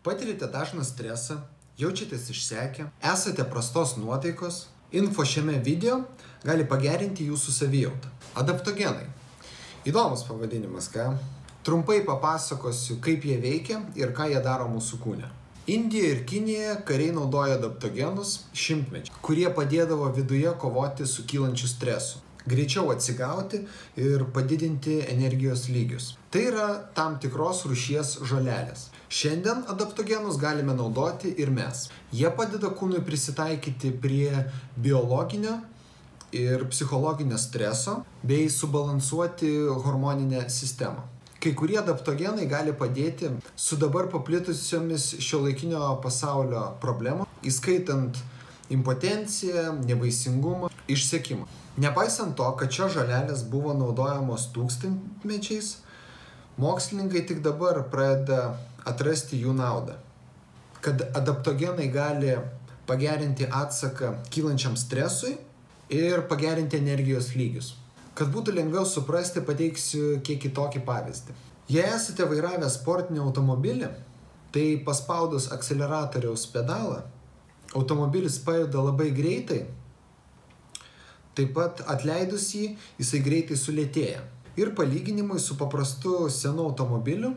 Patirite dažną stresą, jaučiatės išsekę, esate prastos nuotaikos, info šiame video gali pagerinti jūsų savijautą. Adaptogenai. Įdomus pavadinimas, ką? Trumpai papasakosiu, kaip jie veikia ir ką jie daro mūsų kūne. Indijoje ir Kinijoje kariai naudoja adaptogenus šimtmečiais, kurie padėdavo viduje kovoti su kylančiu stresu, greičiau atsigauti ir padidinti energijos lygius. Tai yra tam tikros rūšies žolelės. Šiandien adaptogenus galime naudoti ir mes. Jie padeda kūnui prisitaikyti prie biologinio ir psichologinio streso bei subalansuoti hormoninę sistemą. Kai kurie adaptogenai gali padėti su dabar paplitusiomis šiuolaikinio pasaulio problemomis, įskaitant impotenciją, nevaisingumą, išsekimą. Nepaisant to, kad šios žolelės buvo naudojamos tūkstantmečiais, mokslininkai tik dabar pradeda atrasti jų naudą. Kad adaptogenai gali pagerinti atsaką kylančiam stresui ir pagerinti energijos lygius. Kad būtų lengviau suprasti, pateiksiu kiek kitokį pavyzdį. Jei esate vairavę sportinį automobilį, tai paspaudus akceleratoriaus pedalą, automobilis pajuda labai greitai, taip pat atleidus jį, jisai greitai sulėtėja. Ir palyginimui su paprastu senu automobiliu,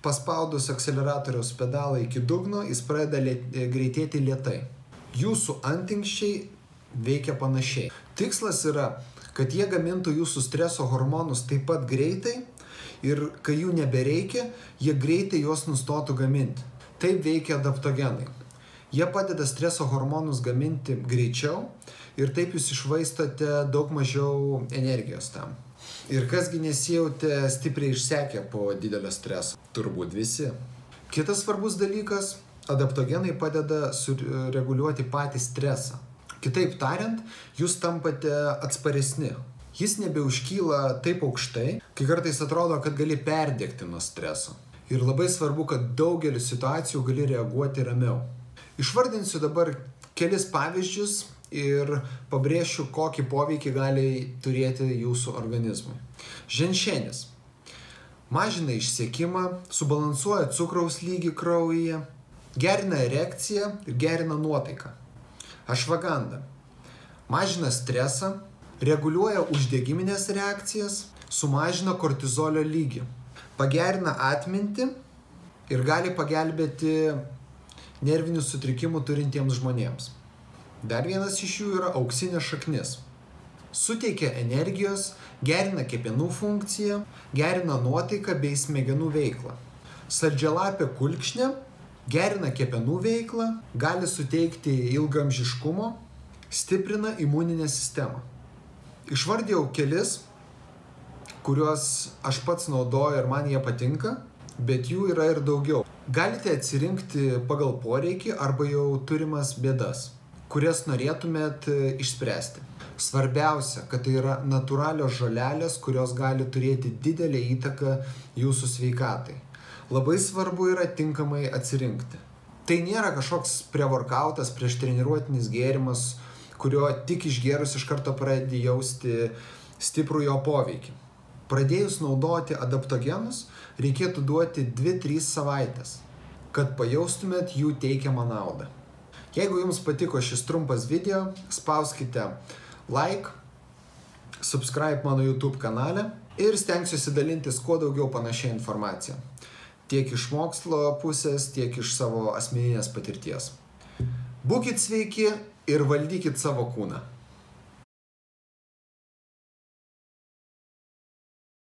paspaudus akceleratoriaus pedalą iki dugno, jis pradeda greitėti lėtai. Jūsų antinksčiai veikia panašiai. Tikslas yra, kad jie gamintų jūsų streso hormonus taip pat greitai ir kai jų nebereikia, jie greitai juos nustotų gaminti. Taip veikia adaptogenai. Jie padeda streso hormonus gaminti greičiau ir taip jūs išvaistote daug mažiau energijos tam. Ir kasgi nesijautė stipriai išsekę po didelio streso? Turbūt visi. Kitas svarbus dalykas, adaptogenai padeda sureguliuoti patį stresą. Kitaip tariant, jūs tampate atsparesni. Jis nebeužkyla taip aukštai, kai kartais atrodo, kad gali perdegti nuo streso. Ir labai svarbu, kad daugelį situacijų gali reaguoti ramiau. Išvardinsiu dabar kelis pavyzdžius ir pabrėšiu, kokį poveikį gali turėti jūsų organizmui. Ženšenis. Mažina išsekimą, subalansuoja cukraus lygį kraujyje, gerina erekciją ir gerina nuotaiką. Ašvaganda. Mažina stresą, reguliuoja uždegiminės reakcijas, sumažina kortizolio lygį, pagerina atmintį ir gali pagelbėti nervinių sutrikimų turintiems žmonėms. Dar vienas iš jų yra auksinė šaknis. Suteikia energijos, gerina kepenų funkciją, gerina nuotaiką bei smegenų veiklą. Saldžialapė kulkšnė gerina kepenų veiklą, gali suteikti ilgaamžiškumo, stiprina imuninę sistemą. Išvardėjau kelis, kuriuos aš pats naudoju ir man jie patinka, bet jų yra ir daugiau. Galite atsirinkti pagal poreikį arba jau turimas bėdas, kurias norėtumėt išspręsti. Svarbiausia, kad tai yra natūralios žolelės, kurios gali turėti didelę įtaką jūsų sveikatai. Labai svarbu yra tinkamai atsirinkti. Tai nėra kažkoks prevorkautas, prieš treniruotinis gėrimas, kurio tik išgėrus iš karto pradedi jausti stiprų jo poveikį. Pradėjus naudoti adaptogenus, reikėtų duoti 2-3 savaitės, kad pajaustumėt jų teikiamą naudą. Jeigu jums patiko šis trumpas video, spauskite like, subscribe mano YouTube kanale ir stengsiuosi dalintis kuo daugiau panašią informaciją. Tiek iš mokslo pusės, tiek iš savo asmeninės patirties. Būkit sveiki ir valdykit savo kūną.